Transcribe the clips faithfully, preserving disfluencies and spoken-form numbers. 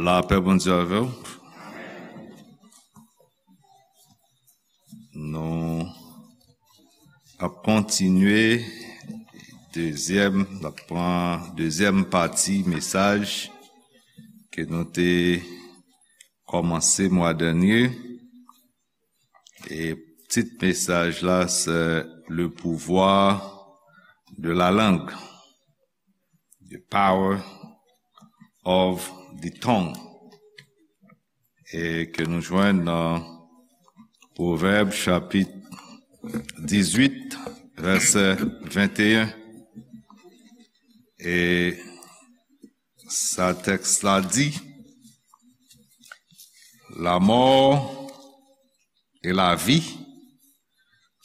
Lapè Bondye avè w. Nou ap kontinye dezyèm, n ap pran dezyèm pati mesaj ke nou te kòmanse mwa dènye. E tit mesaj la, se Le pouvoir de la langue. The power of the tongue. E ke nou jwenn nan Pwovèb chapit dizuit, vèsè venteyen. E sa tèks la di, la mort et la vie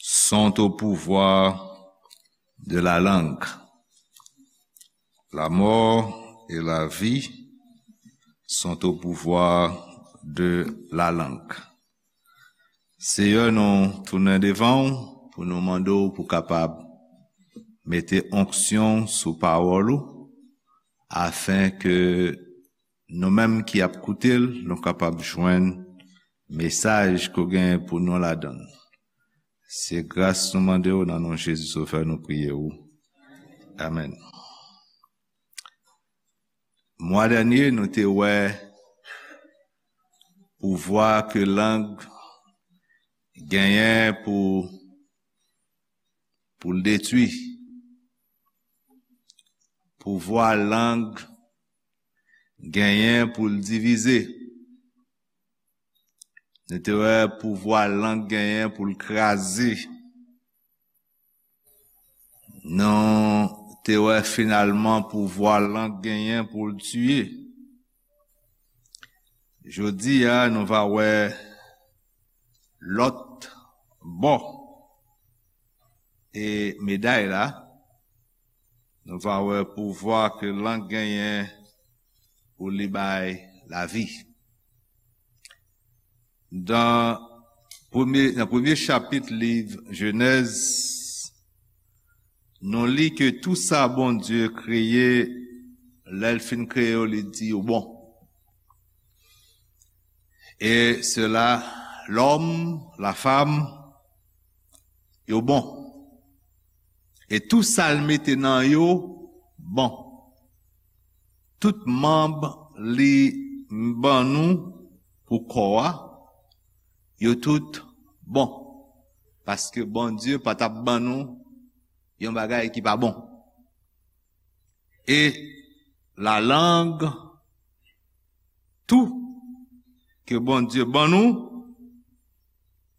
sont au pouvoir de la langue. La mort et la vie sont au pouvoir de la langue. Seyè, nou tounen devan w pou nou mande w pou kapab mete onksyon sou pawòl ou, afen ke nou menm ki ap koute l, nou kapab jwenn mesaj ke w genyen pou nou ladan l. Se gras nou mande w nan non Jezi Sovè nou priye w. Amèn. Mwa dènye, nou te wè pouvwa ke lang genyen pou, pou l detwi. Pouvwa lang genyen pou l divize. Nou te wè pouvwa lang genyen pou l kraze. Nou te wè finalman pouvwa lang genyen pou l tiye. Jodi a, nou va wè lòt bò e meday la. Nou va wè pouvwa ke lang genyen pou li bay lavi. Dan premye, nan premye chapit liv Jenèz, nou li ke tou sa Bondye kreye, lè l fin kreye yo, li di yo bon. E sela, lòm, lafam, yo bon. E tou sa l mete nan yo bon. Tout manm li ban nou pou kò a, yo tout bon. Paske Bondye pa t ap ban nou yon bagay ki pa bon. E lalang, tou, ke Bondye ban nou,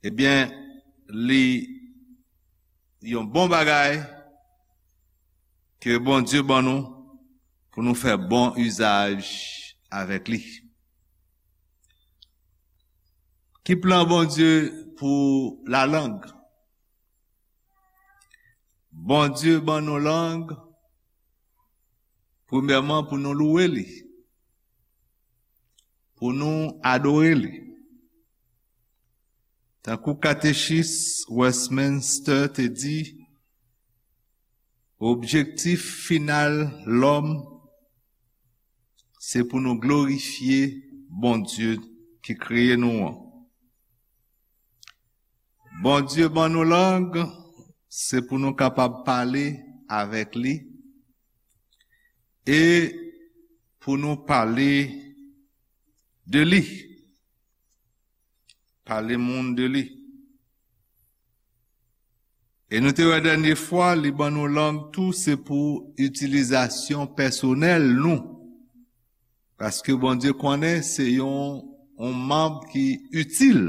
ebyen, li yon bon bagay ke Bondye ban nou pou nou fè bon izaj avèk li. Ki plan Bondye pou lalang? Bondye ban nou lang, premyèman, pou nou louwe li, pou nou adore li. Tankou Katechis Westminster te di, objektif final lòm, se pou nou glorifye Bondye ki kreye nou an. Bondye ban nou lang, se pou nou kapab pale avèk li e pou nou pale de li. Pale moun de li. E nou te wè dènye fwa, li ban nou lang tou, se pou itilizasyon pèsonèl nou. Paske Bondye konnen se yon, yon manm ki itil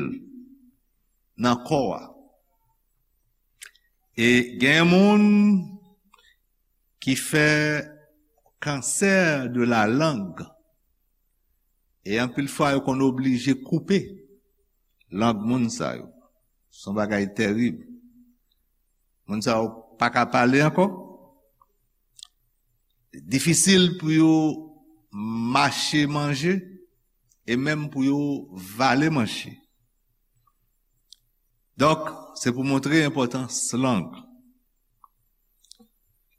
nan kò a. E gen moun ki fè kansè de la lang. E anpil fwa, yo konn oblije koupe lang moun sa yo. Se yon bagay tèrib. Moun sa yo pa ka pale ankò. Difisil pou yo mache manje e menm pou yo vale manje. Donk, se pou montre enpòtans lang.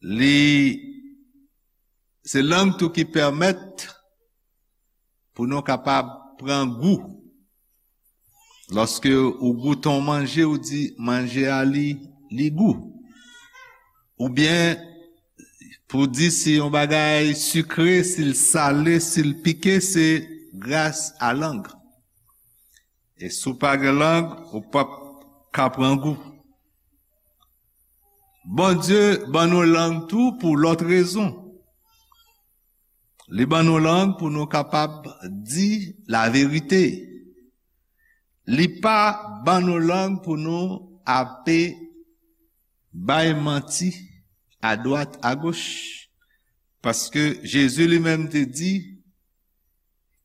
Li, se lang tou ki pèmèt pou nou kapab pran gou. Lòske ou goute yon manje, ou di manje a li, li gou. Oubyen, pou di si yon bagay sikre, si l sale, si l pike, se gras a lang. E si w pa gen lang, ou p ap ka pran gou. Bondye ban nou lang tou pou lòt rezon. Li ban nou lang pou nou kapab di laverite. Li pa ban nou lang pou nou ape bay manti adwat agoch. Paske Jezi li menm te di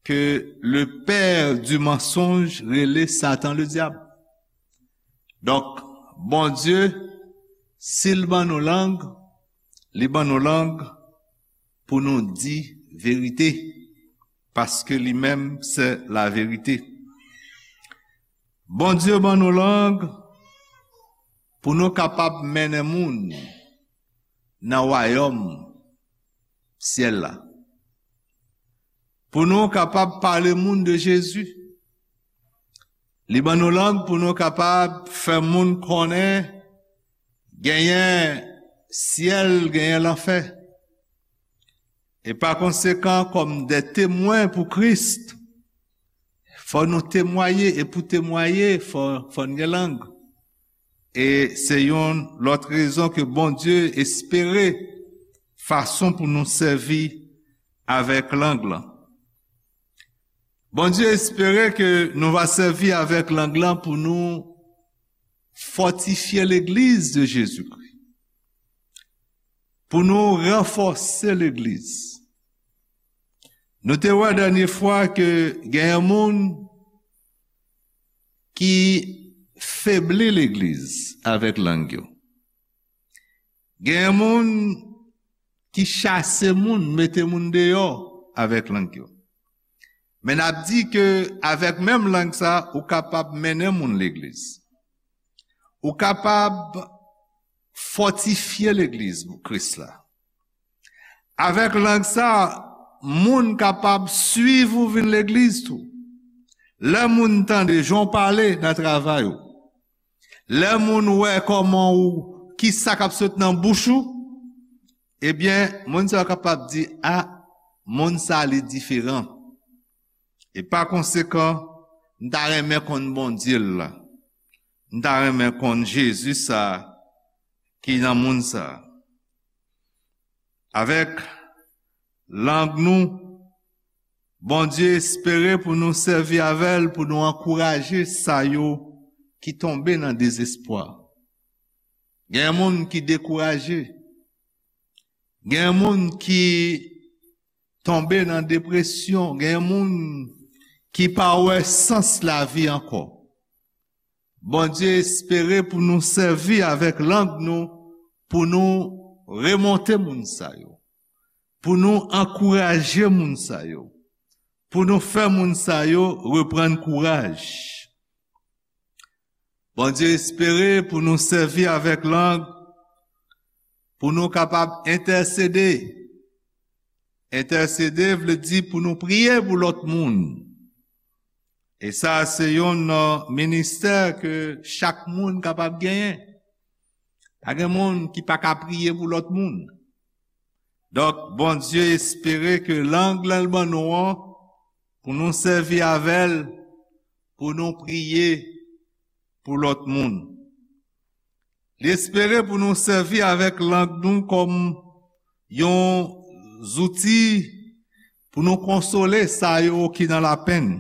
ke le père du mensonge rele Satan le dyab. Donk, Bondye, si l ban nou lang, li ban nou lang pou nou di verite, paske li menm se laverite. Bondye ban nou lang pou nou kapab mennen moun nan wayòm syèl la. Pou nou kapab pale moun de Jezi. Li ban nou lang pou nou kapab fè moun konnen genyen syèl, genyen lanfè. E pa konsekan, kòm de temwen pou Kris, fò nou temwaye, e pou temwaye, fò, fò n gen lang. E se yon lòt rezon ke Bondye espere fason pou nou sèvi avèk lang lan. Bondye espere ke nou va sèvi avèk lang lan pou nou fòtifye legliz de Jezikri, pou nou ranfòse legliz. Nou te wè dènye fwa ke genyen moun ki febli legliz avèk lang yo. Genyen moun ki chase moun, mete moun deyò avèk lang yo. Men n ap di ke avèk menm lang sa, ou kapab mennen moun legliz. Ou kapab fòtifye legliz Kris la. Avèk lang sa, moun kapab swiv ou vin legliz tou. Lè moun tande jan w pale nan travay ou, lè moun wè kòman ou, ki sa k ap sot nan bouch ou, ebyen, moun sa yo kapab di, a, moun sa li diferan. E pa konsekan, m ta renmen konn Bondye l la. M ta renmen konn Jezi sa ki nan moun sa. Avèk lang nou, Bondye espere pou nou sèvi avè l, pou nou ankouraje sa yo ki tonbe nan dezespwa. Gen moun ki dekouraje. Gen moun ki tonbe nan depresyon. Gen moun ki pa wè sans lavi ankò. Bondye espere pou nou sèvi avèk lang nou, pou nou remonte moun sa yo, pou nou ankouraje moun sa yo, pou nou fè moun sa yo reprann kouraj. Bondye espere pou nou sèvi avèk lang, pou nou kapab entèsede. Entèsede vle di pou nou priye pou lòt moun. E sa se yon, uh, ministè ke chak moun kapab genyen. Pa gen moun ki pa ka priye pou lòt moun. Donk, Bondye espere ke lang lan l ban nou an, pou nou sèvi avè l, pou nou priye pou lòt moun. Li espere pou nou sèvi avèk lang nou kòm yon zouti pou nou konsole sa yo ki nan lapenn,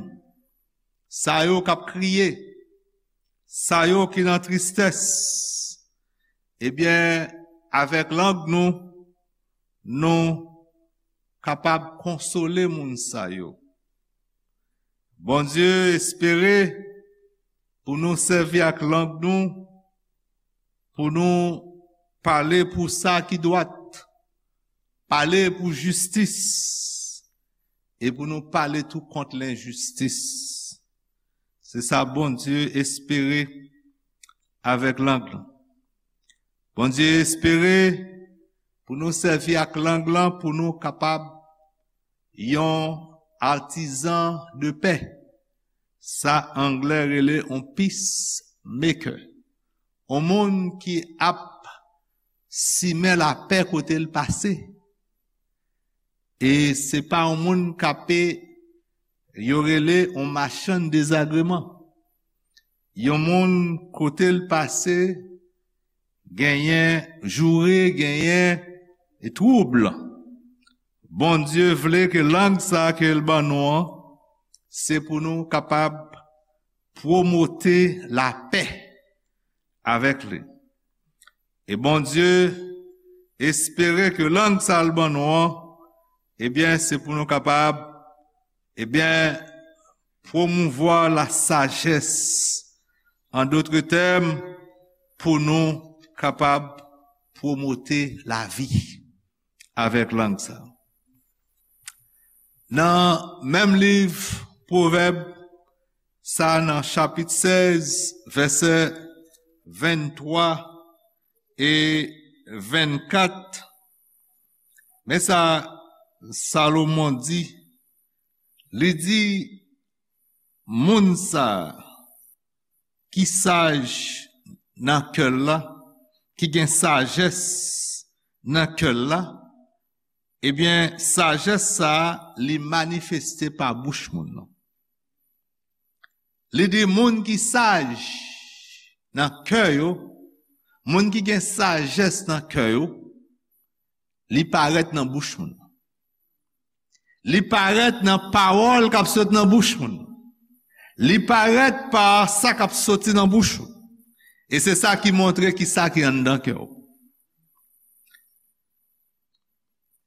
sa yo k ap kriye, sa yo ki nan tristès. Ebyen, avèk lang nou, nou kapab konsole moun sa yo. Bondye espere pou nou sèvi ak lang nou, pou nou pale pou sa ki dwat, pale pou jistis, e pou nou pale tou kont lenjistis. Se sa Bondye espere avèk lang lan. Bondye espere pou nou sèvi ak lang lan pou nou kapab yon artisan de paix. Sa anglè rele yon peacemaker. Yon moun ki ap simen lapè kote l pase. E se pa yon moun k ap, yo rele yon machann dezagreman. Yon moun kote l pase, genyen joure, genyen twoub. Bondye vle ke lang sa ke l ban nou an, se pou nou kapab pwomote lapè avèk li. E Bondye espere ke lang sa l ban nou an, ebyen, se pou nou kapab, ebyen, pwomouvwa lasajès. An dòt tèm, pou nou kapab pwomote lavi avèk lang sa. Nan menm liv Pwovèb sa, nan chapit sèz, vèsè venntwa e vennkat, men sa Salomon di, li di, moun sa ki saj nan kè l la, ki gen sajès nan kè l la, ebyen, sajès sa a, li manifeste pa bouch moun nan. Li di moun ki saj nan kè yo, moun ki gen sajès nan kè yo, li parèt nan bouch moun. Li parèt nan pawòl k ap sot nan bouch moun. Li parèt pa sa k ap soti nan bouch ou. E se sa ki montre ki sa ki anndan kè w.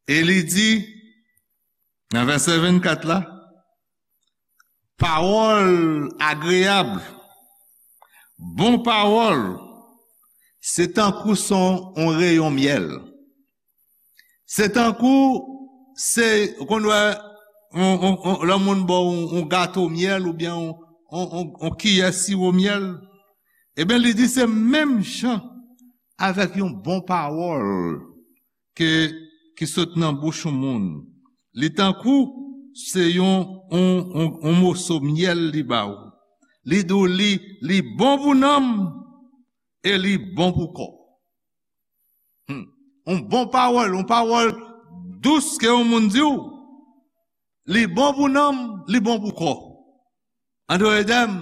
E li di, nan vèsè vennkat la, pawòl agreyab, bon pawòl, se tankou s on, on reyon myèl. Se tankou, se, ou konn wè, on, on, on, lè moun ba w on, on gato myèl oubyen on, on, on, on kiyè siwo myèl. Ebyen, li di se menm jan avèk yon bon pawòl ke, ki sot nan bouch yon moun. Li tankou se yon, on, on, on moso myèl li ba ou. Li di w li, li bon pou nanm e li bon pou kò. Hmm. On bon pawòl, on pawòl dous ke yon moun di w, li bon pou nanm, li bon pou kò. An dòt tèm,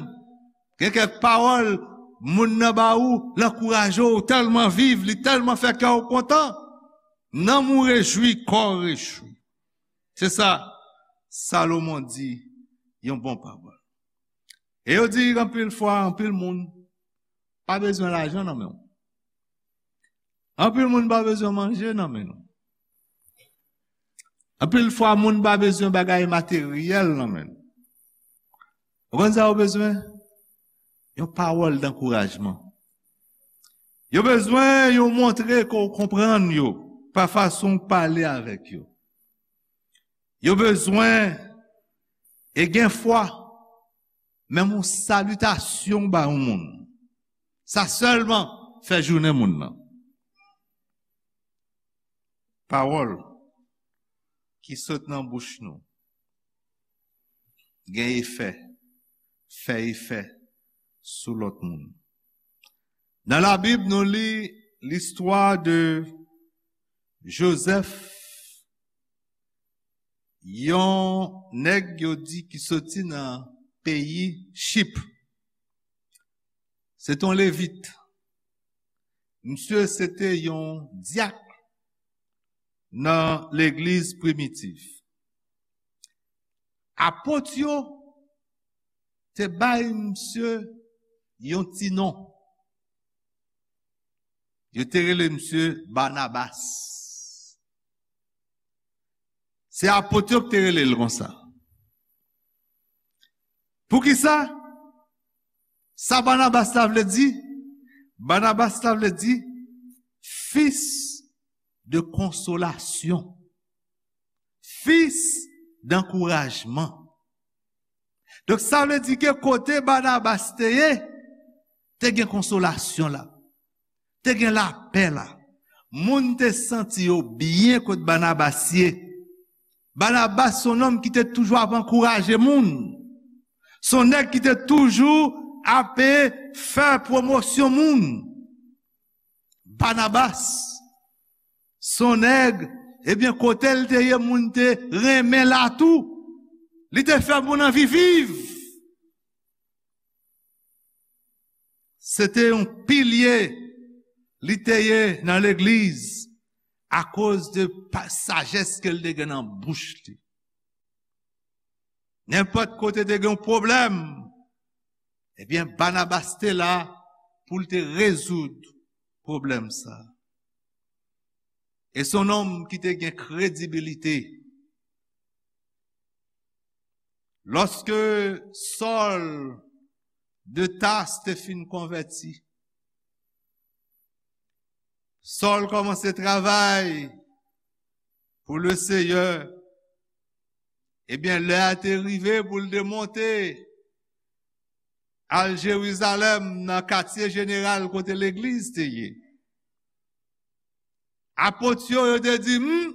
gen kèk pawòl moun nan ba ou, l ankouraje w, ou tèlman viv, li tèlman fè kè w kontan. Nanm ou rejwi, kò w rejwi. Se sa Salomon di, yon bon pawòl. E yo di anpil fwa, anpil moun pa bezwen lajan nan men w. Anpil moun pa bezwen manje nan men nou. Anpil fwa, moun pa bezwen bagay materyèl nan men nou. Ou konn sa yo bezwen? Yon pawòl dankourajman. Yo bezwen yon montre ke w konprann yo pa fason w pale avèk yo. Yo bezwen, e gen fwa, menm yon salitasyon ba yon moun, sa sèlman fè jounen moun nan. Pawòl ki sot nan bouch nou gen efè, fè efè sou lòt moun. Nan Labib, nou li listwa de Jozèf, yon nèg yo di ki soti nan peyi Chip. Se te yon Levit. Misye se te yon dyak nan legliz primitif. Apot yo te bay misye yon ti non. Yo te rele misye Banabas. Se apot yo ki te rele l konsa. Poukisa? Sa Banabas la vle di? Banabas la vle di fils de consolation. Fils d'encouragement. Donk, sa vle di ke kote Banabas te ye, te gen konsolasyon la, te gen lapè la. Moun te santi yo byen kot Banabas ye. Banabas se yon nonm ki te toujou ap ankouraje moun. Se yon nèg ki te toujou ap fè pwomosyon moun. Banabas se yon nèg, ebyen, kote l te ye, moun te renmen l tou. Li te fè moun anvi viv. Se te yon pilye li te ye nan legliz akoz de pa- sajès ke l te gen nan bouch li. Nenpòt kote te gen yon pwoblèm, ebyen, Banabas te la pou l te rezoud pwoblèm sa. E se yon nonm ki te gen kredibilite. Lòske Sòl de Tas te fin konvèti, Sòl kòmanse travay pou le Seyè. Ebyen, lè a te rive pou l te monte al Jerizalèm, nan katye jeneral kote legliz te ye. Apot yo, yo te di, "Hmm,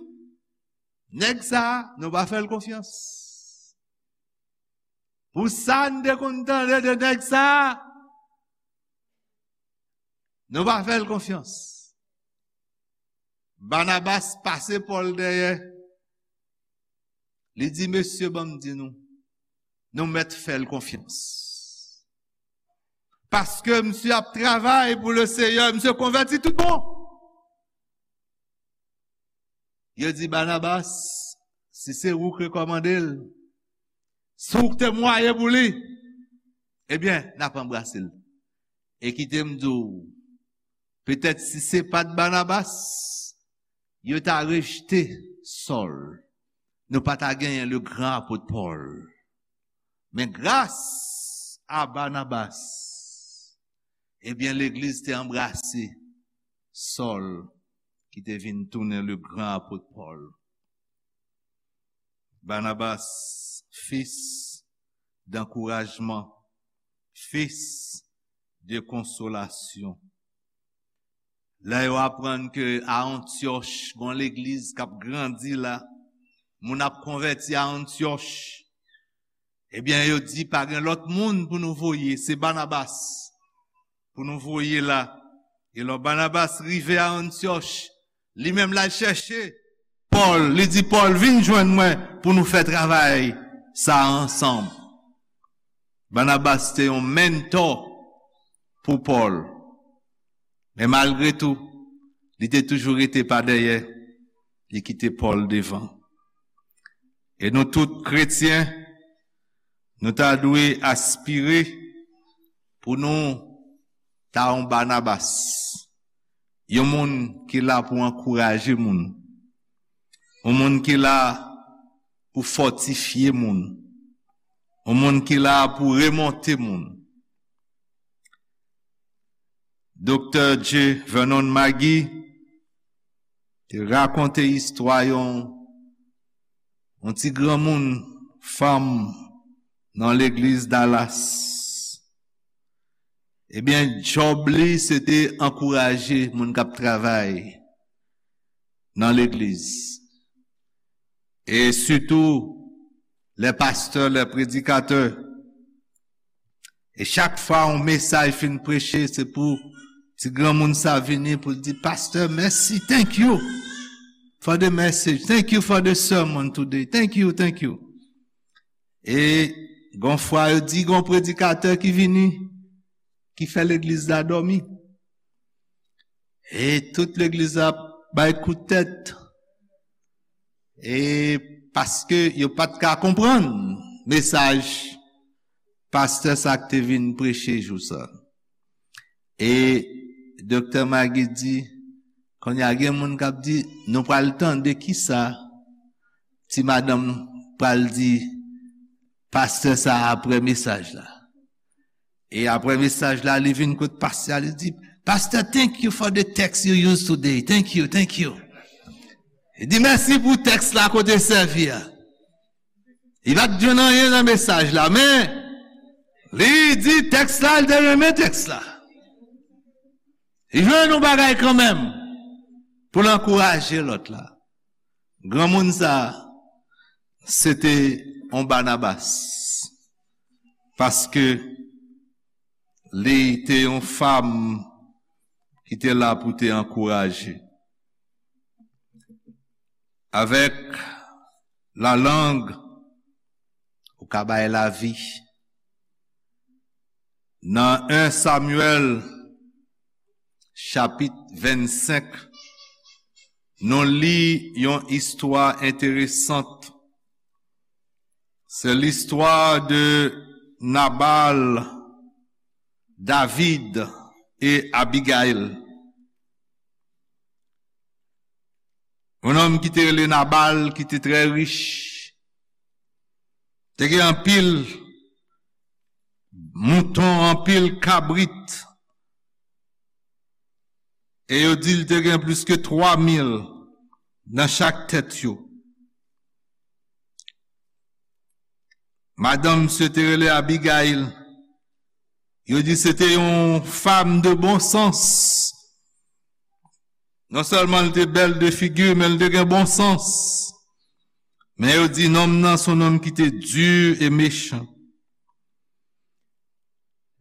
nèg sa, nou pa fè l konfyans. Pou sa n te konn tande de nèg sa, nou pa fè l konfyans." Banabas pase Pòl dèyè. Li di, "Mesye, ban m di nou, nou mèt fè l konfyans. Paske misye ap travay pou le Seyè, misye konvèti tout bon." Yo di, "Banabas, si se ou k rekòmande l, si w k temwaye pou li, ebyen, n ap anbrase l." E kite m di w, petèt si se pa t Banabas, yo ta rejte Sòl. Nou pa ta genyen le gran apot Pòl. Men gras a Banabas, ebyen, legliz te anbrase Sòl, ki te vin tounen le gran apot Pòl. Banabas, fils d'encouragement, fils de consolation. Lè yo aprann ke a Antyòch, gon legliz k ap grandi la, moun ap konvèti a Antyòch, ebyen, yo di, "Pa gen lòt moun pou nou voye, se Banabas pou nou voye la." E lò Banabas rive a Antyòch, li menm l al chèche Pòl, li di, "Pòl, vin jwenn mwen pou nou fè travay sa a ansanm." Banabas te yon mentò pou Pòl. Men malgre tou, li te toujou rete pa dèyè, li kite Pòl devan. E nou tout kretyen, nou ta dwe aspire pou nou ta yon Banabas, yon moun ki la pou ankouraje moun, yon moun ki la pou fòtifye moun, yon moun ki la pou remonte moun. Doktè J. Vernon Magee te rakonte istwa yon, yon ti granmoun fanm nan legliz Dallas. Ebyen, djòb li, se te ankouraje moun k ap travay nan legliz. E sitou, lè pastè, lè predikatè. E chak fwa yon mesaj fin preche, se pou ti granmoun sa vini pou l di, "Pastor, mèsi, thank you for the message, thank you for the sermon today, thank you, thank you." E gon fwa yo di, gon predikatè ki vini, ki fè legliz la dòmi. E tout legliz la bay kout tèt. E paske yo pa t ka konprann mesaj pastè sa k te vin preche jou sa. E doktè Magee di, kounye a gen moun k ap di, "Nou pral tande kisa ti madanm pral di pastè sa a apre mesaj la." E apre mesaj la, li vin kot pastè a, li di, "Pastor, thank you for the text you used today. Thank you, thank you." Li di, "Mèsi pou tèks la kote sèvi a." Li pa t jwenn anyen nan mesaj la, men li di tèks la, li te renmen tèks la. Li jwenn yon bagay kanmenm pou l ankouraje lòt la. Granmoun sa a, se te yon Banabas, paske li te yon fanm ki te la pou te ankouraje. Avèk lalang, ou ka bay lavi. Nan en Samyèl, chapit vennsenk, nou li yon istwa enteresan. Se listwa de Nabal, David e Abigayil. Yon nonm ki te rele Nabal, ki te trè rich, te gen anpil mouton, anpil kabrit, e yo di l te gen plis ke twa mil nan chak tèt yo. Madanm misye te rele Abigayil. Yo di se te yon fanm de bon sans. Non sèlman l te bèl de figi, men l te gen bon sans. Men yo di nonm nan se yon nonm ki te di e mechan.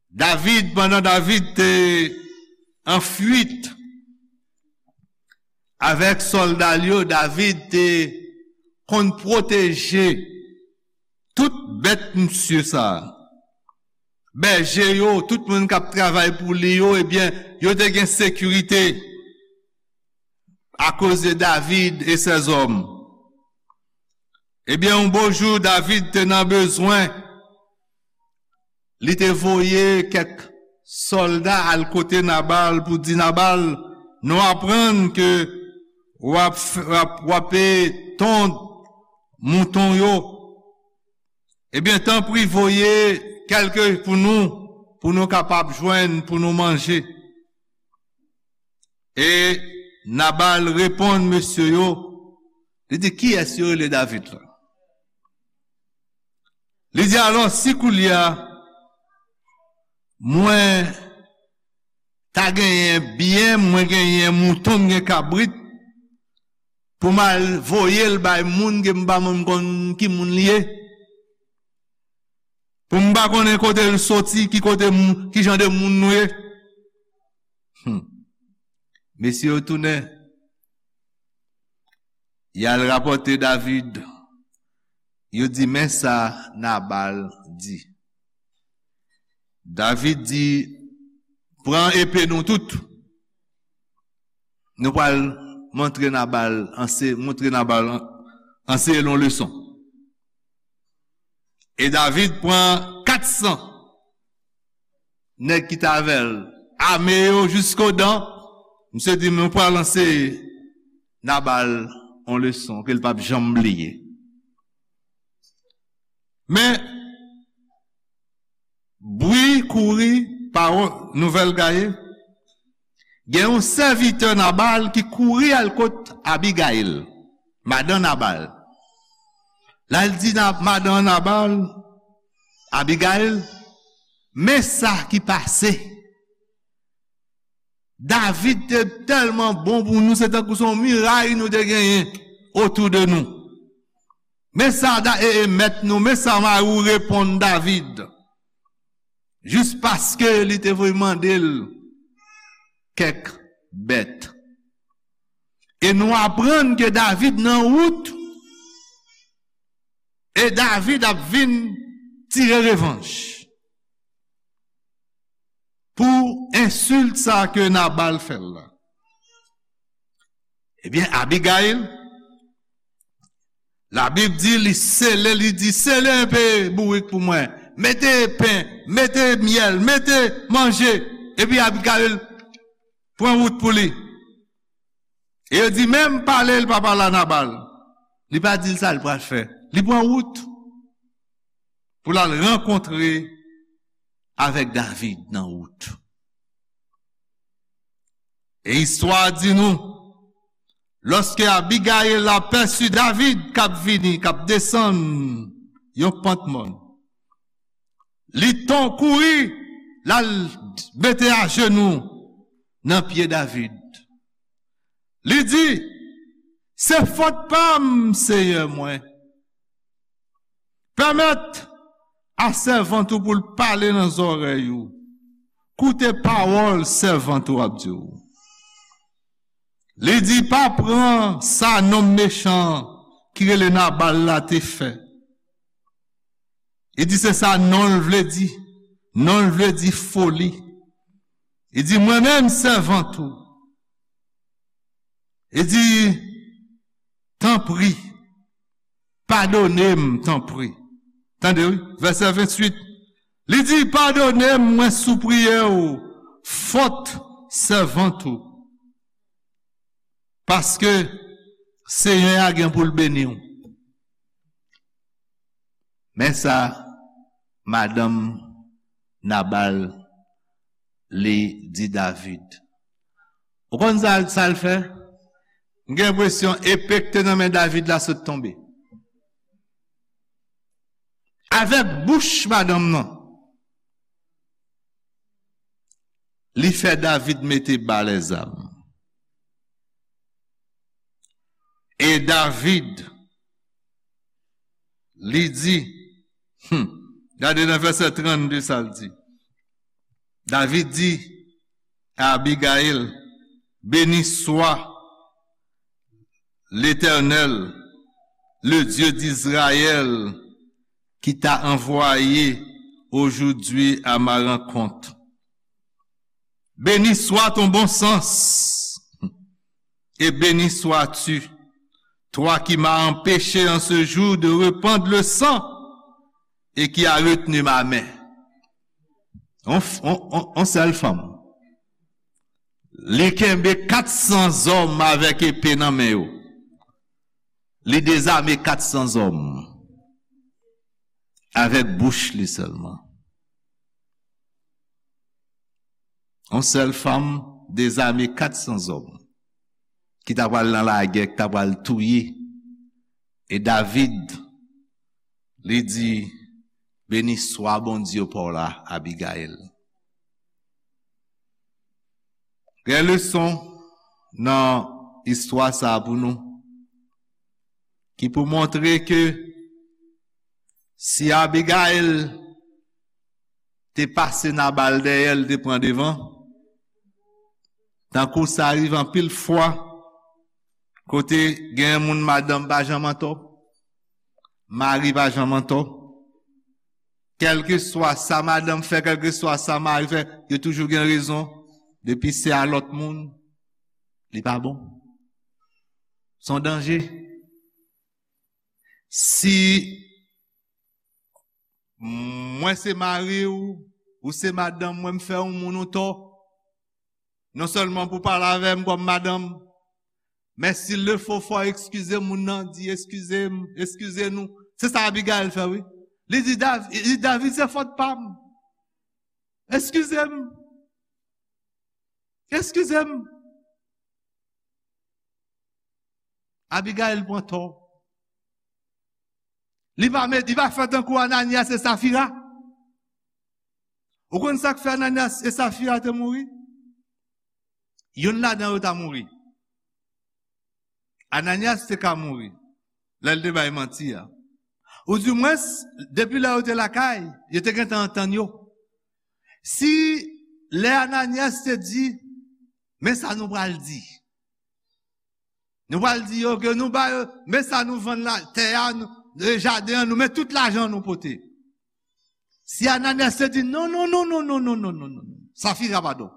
David, pandan David te an fuit avèk sòlda l yo, David te konn pwoteje tout bèt misye sa a. Bèje yo, tout moun k ap travay pou li yo, ebyen, yo te gen sekirite akoz de David e sèzòm. Ebyen, yon bon jou, David te nan bezwen. Li te voye kèk sòlda al kote Nabal pou di, Nabal, nou aprann ke w ap f-, w ap, w ap, e, tonn mouton yo. Ebyen, tanpri, voye kèlke pou nou, pou nou kapab jwenn, pou nou manje. E Nabal reponn mesye yo, li di, kiyès yo rele David la? Li di, alò, si koulye a mwen ta genyen byen, mwen genyen mouton, m gen kabrit, pou m al voye l bay moun ke m pa menm konn ki moun li ye, pou m pa konnen kote l soti, ki kote moun, ki jan de moun nou ye. Hmm. Mesye yo tounen, y al rapòte David. Yo di, men sa Nabal di. David di, pran epe nou tout. Nou pral montre Nabal, anse-, montre Nabal an-, anseye l yon leson. E David pran kat san nèg ki t avè l, ame yo jiskodan. Misye di, nou pral anseye Nabal yon leson ke l p ap janm bliye. Men, bri kouri, pawòl, nouvèl gaye, gen yon sèvitè Nabal ki kouri al kot Abigayil, madan Nabal. La, l di Na-, madan Nabal, Abigayil, men sa ki pase. David te tèlman bon pou nou, se tankou se yon miray nou te genyen otou de nou. Men sa Da-, e, e, mèt nou, men sa mari w reponn David. Jis paske li te voye mande l kèk bèt. E nou aprann ke David nan wout, e David ap vin tire revanj pou ensilt sa ke Nabal fè l la. Ebyen, Abigayil, Labib di li sele, li di, sele enpe bourik pou mwen, mete pen, mete myèl, mete manje, epi Abigayil pran wout pou li. E yo di, menm pale l pa pale a Nabal. Li pa di l sa l pral fè. Li pran wout pou l al rankontre avèk David nan wout. E istwa a di nou, lòske Abigayil apèsi David k ap vini, k ap desann yon pant mòn, li ton kouri, l al mete ajenou nan pye David. Li di, se fòt pa m, Seyè mwen. Pèmèt a sèvant ou pou l pale nan zòrèy ou. Koute pawòl sèvant ou ap di w. Li di, pa pran sa nonm mechan ki rele Nabal la te fè. Li di, se sa non l vle di. Non l vle di foli. Li di, mwen menm sèvant ou. Li di, tanpri, padone m, tanpri. Tande, wi, vèsè venntuit. Li di, padone m, mwen sipriye w, fòt sèvant ou. Paske Senyè a gen pou l beni w. Men sa madanm Nabal li di David. Ou konn sa, sa l fè? M gen enpresyon epe k te nan men David la sot tonbe. Avèk bouch madanm nan, li fè David mete ba lèzam. E David, li di, hmm, gade nan vèsè trannde sa l di. David di a Abigayil, béni soit l'Éternel, le Dieu d'Israël, qui t'a envoyé aujourd'hui à ma rencontre. Béni soit ton bon sens, et béni sois-tu, toi qui m'as empêché en ce jour de répandre le sang et qui as retenu ma main. On, on, on, on sèl fanm. Li kenbe kat san zòm avèk epe nan men yo. Li dezame kat san zòm avèk bouch li sèlman. Yon sèl fanm dezame kat san zòm ki ta pral nan lagè, ki ta pral touye. E David, li di, beni swa Bondye pa w la, Abigayil. Gen leson nan istwa sa a pou nou, ki pou montre ke si Abigayil te pase Nabal dèyè, li te pran devan, tankou sa rive anpil fwa, kote gen moun madanm pa janm antò, mari pa janm antò. Kèlkeswa sa madanm fè, kèlkeswa sa mari fè, yo toujou gen rezon. Depi se a lòt moun, li pa bon. Se yon danje. Si mwen se mari w, ou se madanm mwen, m fè yon moun yon tò, non sèlman pou pale avè m kòm madanm, men si l le fo, fò w eskize moun nan, di, eskize m, eskize nou. Se sa Abigayil fè, wi. Li di, Dav-, li di, David, se fòt pa m. Eskize m. Eskize m. Abigayil pran tò. Li pa met, li pa fè tankou Ananyas e Safira. Ou konn sa k fè Ananyas e Safira te mouri? Youn ladan yo ta mouri. Ananyas te ka mouri lè l te bay manti a. Oudimwens, depi lè yo te lakay, yo te gentan antann yo. Si lè Ananyas te di, men sa nou pral di. Nou pral di yo ke nou ba yo, men sa nou vann la, tè a, nou, e, jaden an, nou, men tout lajan nou pote. Si Ananyas te di, non, non, non, Safira, padon.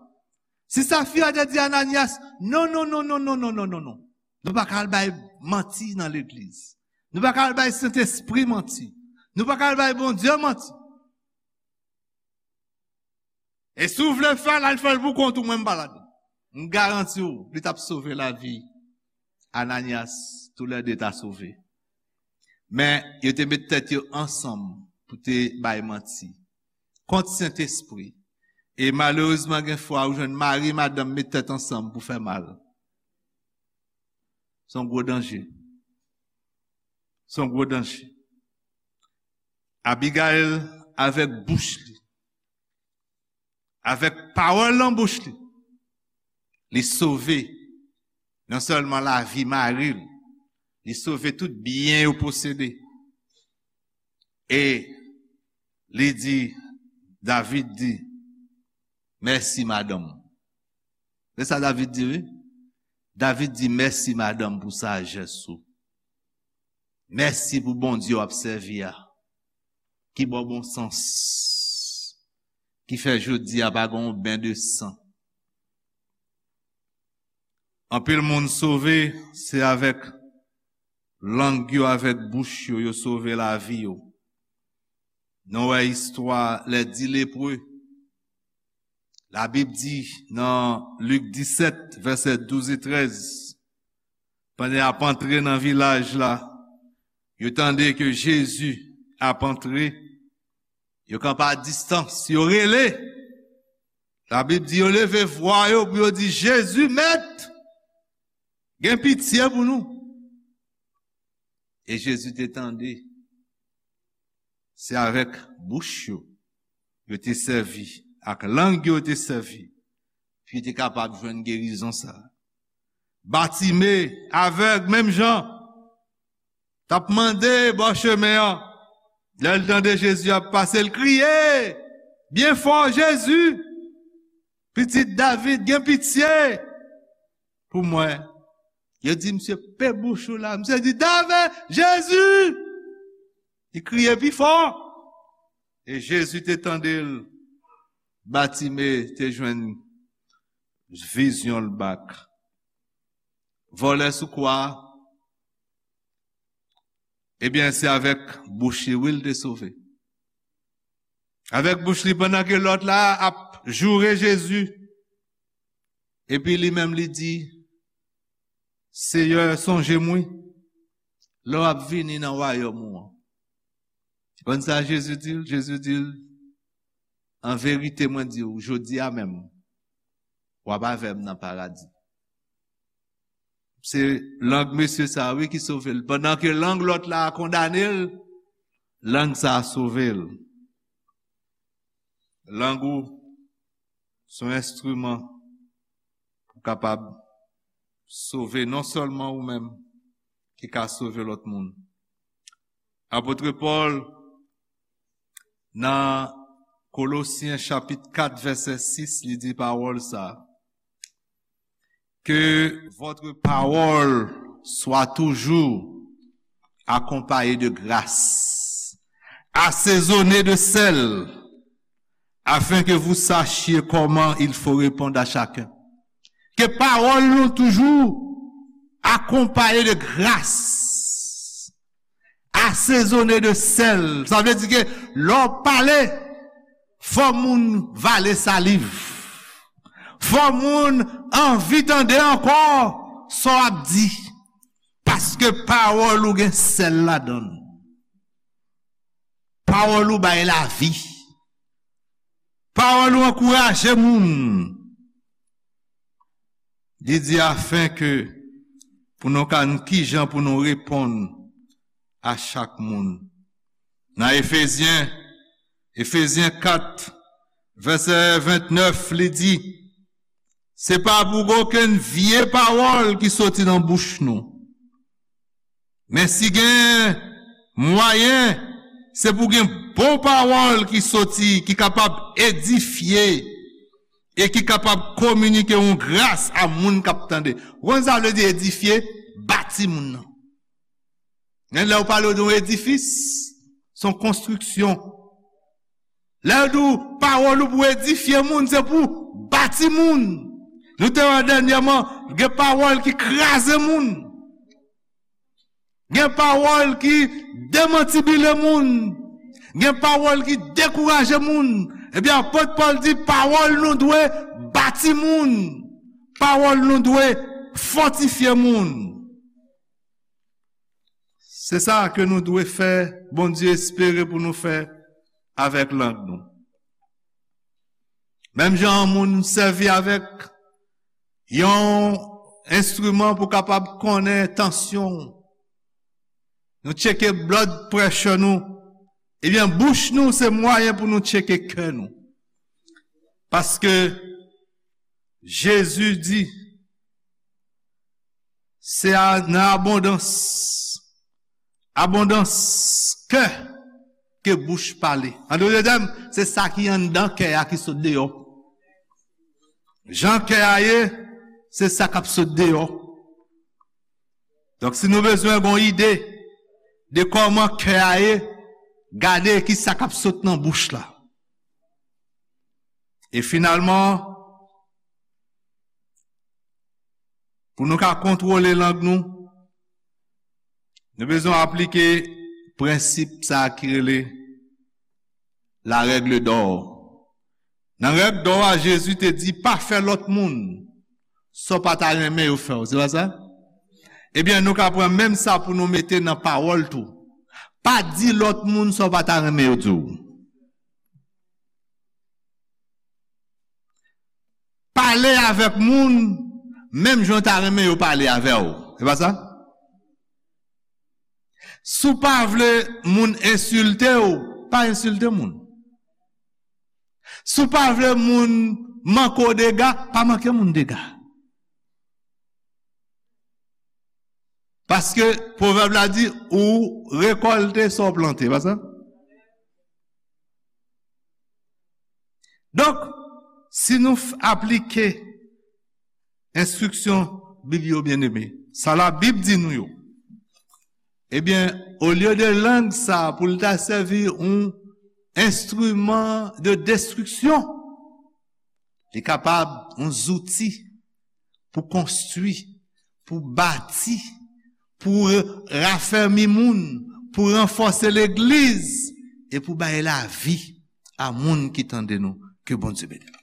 Si Safira te di Ananyas, non, non, non, nou pa ka al bay manti nan legliz. Nou pa ka al bay Sentespri manti. Nou pa ka al bay Bondye manti. E si w vle fè l, al fè l pou kont ou, mwen m pa ladan. M garanti w, li t ap sove lavi Ananyas, toulède ta sove. Men, yo te met tèt yo ansanm pou te bay manti kont Sentespri. E malerezman, gen fwa ou jwenn mari, madanm met tèt ansanm pou fè mal. Se yon gwo danje. Se yon gwo danje. Abigayil, avèk bouch li, avèk pawòl nan bouch li, li sove non sèlman lavi mari l, li sove tout byen yo posede. E li di, David di, mèsi, madanm. Se sa David di, wi. David di, mèsi, madanm, pou sajès ou. Mèsi pou Bondye w ap sèvi a, ki ba w bon sans, ki fè jodi a pa gen yon ben de san. Anpil moun sove, se avèk lang yo, avèk bouch yo, yo sove lavi yo. Nou wè istwa lè dis lepre. Labib di nan Lik disèt, vèsè douz e trèz, pandan y ap antre nan vilaj la, yo tande ke Jezi ap antre, yo kanpe a distans, yo rele. Labib di yo leve vwa yo pou yo di, Jezi, Mèt, gen pitye pou nou. E Jezi te tande. Se avèk bouch yo, yo te sèvi, ak lang yo, yo te sèvi, pou yo te kapab jwenn gerizon sa a. Batime, avèg, menm jan, t ap mande bò chemen an. Lè l tande Jezi ap pase, l kriye byen fò, Jezi, pitit David, gen pitye pou mwen. Yo di, misye pe bouch ou la. Misye di, David, Jezi! Li kriye pi fò. E Jezi te tande l. Batime te jwenn vizyon l back. Vòlè sou kwa a, ebyen, se avèk bouch li, wi, l te sove. Avèk bouch li, pandan ke lòt la ap joure Jezi, epi li menm li di, Seyè, sonje m, wi, lè w ap vini nan wayòm ou an. Konn sa Jezi di l? Jezi di l, an verite, mwen di w, jodi a menm, w ap avè m nan paradi. Se lang mesye sa a, wi, ki sove l. Pandan ke lang lòt la a kondane l, lang sa a sove l. Lang ou se yon enstriman pou kapab sove non sèlman ou menm, ki ka sove lòt moun. Apot Pòl, nan Kolosyen chapit kat, vèsè sis, li di pawòl sa a, Que votre parole soit toujours accompagnée de grâce, assaisonnée de sel, afin que vous sachiez comment il faut répondre à chacun. Ke pawòl nou toujou akonpaye de gras, asezone de sèl. Sa vle di ke lè w pale, fò moun vale saliv. Fò moun anvi tande ankò sa w ap di. Paske pawòl ou gen sèl ladan l. Pawòl ou bay lavi. Pawòl ou ankouraje moun. Li di afin ke pou nou ka, kijan pou nou reponn a chak moun. Nan Efezyen, Efezyen kat, vèsè vennèf, li di, se pa pou gen okenn vye pawòl ki soti nan bouch nou. Men si gen mwayen, se pou gen bon pawòl ki soti, ki kapab edifye, e ki kapab kominike yon gras a moun k ap tande. Ou konn sa vle di edifye? Bati moun nan. Men lè w pale de yon edifis, se yon konstriksyon. Lè yo di w pawòl ou pou edifye moun, se pou bati moun. Nou te wè dènyèman, gen pawòl ki kraze moun. Gen pawòl ki demantibile moun. Gen pawòl ki dekouraje moun. Ebyen, apot Pòl di pawòl nou dwe bati moun. Pawòl nou dwe fòtifye moun. Se sa ke nou dwe fè, Bondye espere pou nou fè avèk lang nou. Menm jan yon moun sèvi avèk yon enstriman pou kapab konnen tansyon w, nou tcheke blood pressure nou, ebyen, bouch nou se mwayen pou nou tcheke kè nou. Paske Jezi di, se a, nan abondans, abondans kè, ke bouch pale. An dòt tèm, se sa ki anndan kè a ki sot deyò. Jan kè a ye, se sa k ap sot deyò. Donk, si nou bezwen gon ide de kòman kè a ye, gade ki sa k ap sot nan bouch la. E finalman, pou nou ka kontwole lang nou, nou bezwen aplike prensip sa a ki rele la règle d'or. Nan règ dò a, Jezi te di, pa fè lòt moun sa w pa ta renmen yo fè w. Se pa sa? Ebyen, nou ka pran menm sa pou nou mete nan pawòl tou. Pa di lòt moun sa w pa ta renmen yo di w. Pale avèk moun menm jan w ta renmen yo pale avè w. Se pa sa? Si w pa vle moun ensilte w, pa ensilte moun. Si w pa vle moun manke w dega, pa manke moun dega. Paske pwovèb la di, ou rekòlte sa w plante, pa sa? Donk, si nou f- aplike enstriksyon Bib yo, byeneme, sa Labib di nou yo, ebyen, olye de lang sa a pou l ta sèvi yon enstriman de destriksyon, li kapab yon zouti pou konstwi, pou bati, pou rafèmi moun, pou ranfòse legliz e pou bay lavi a moun ki tande nou. Ke Bondye beni nou.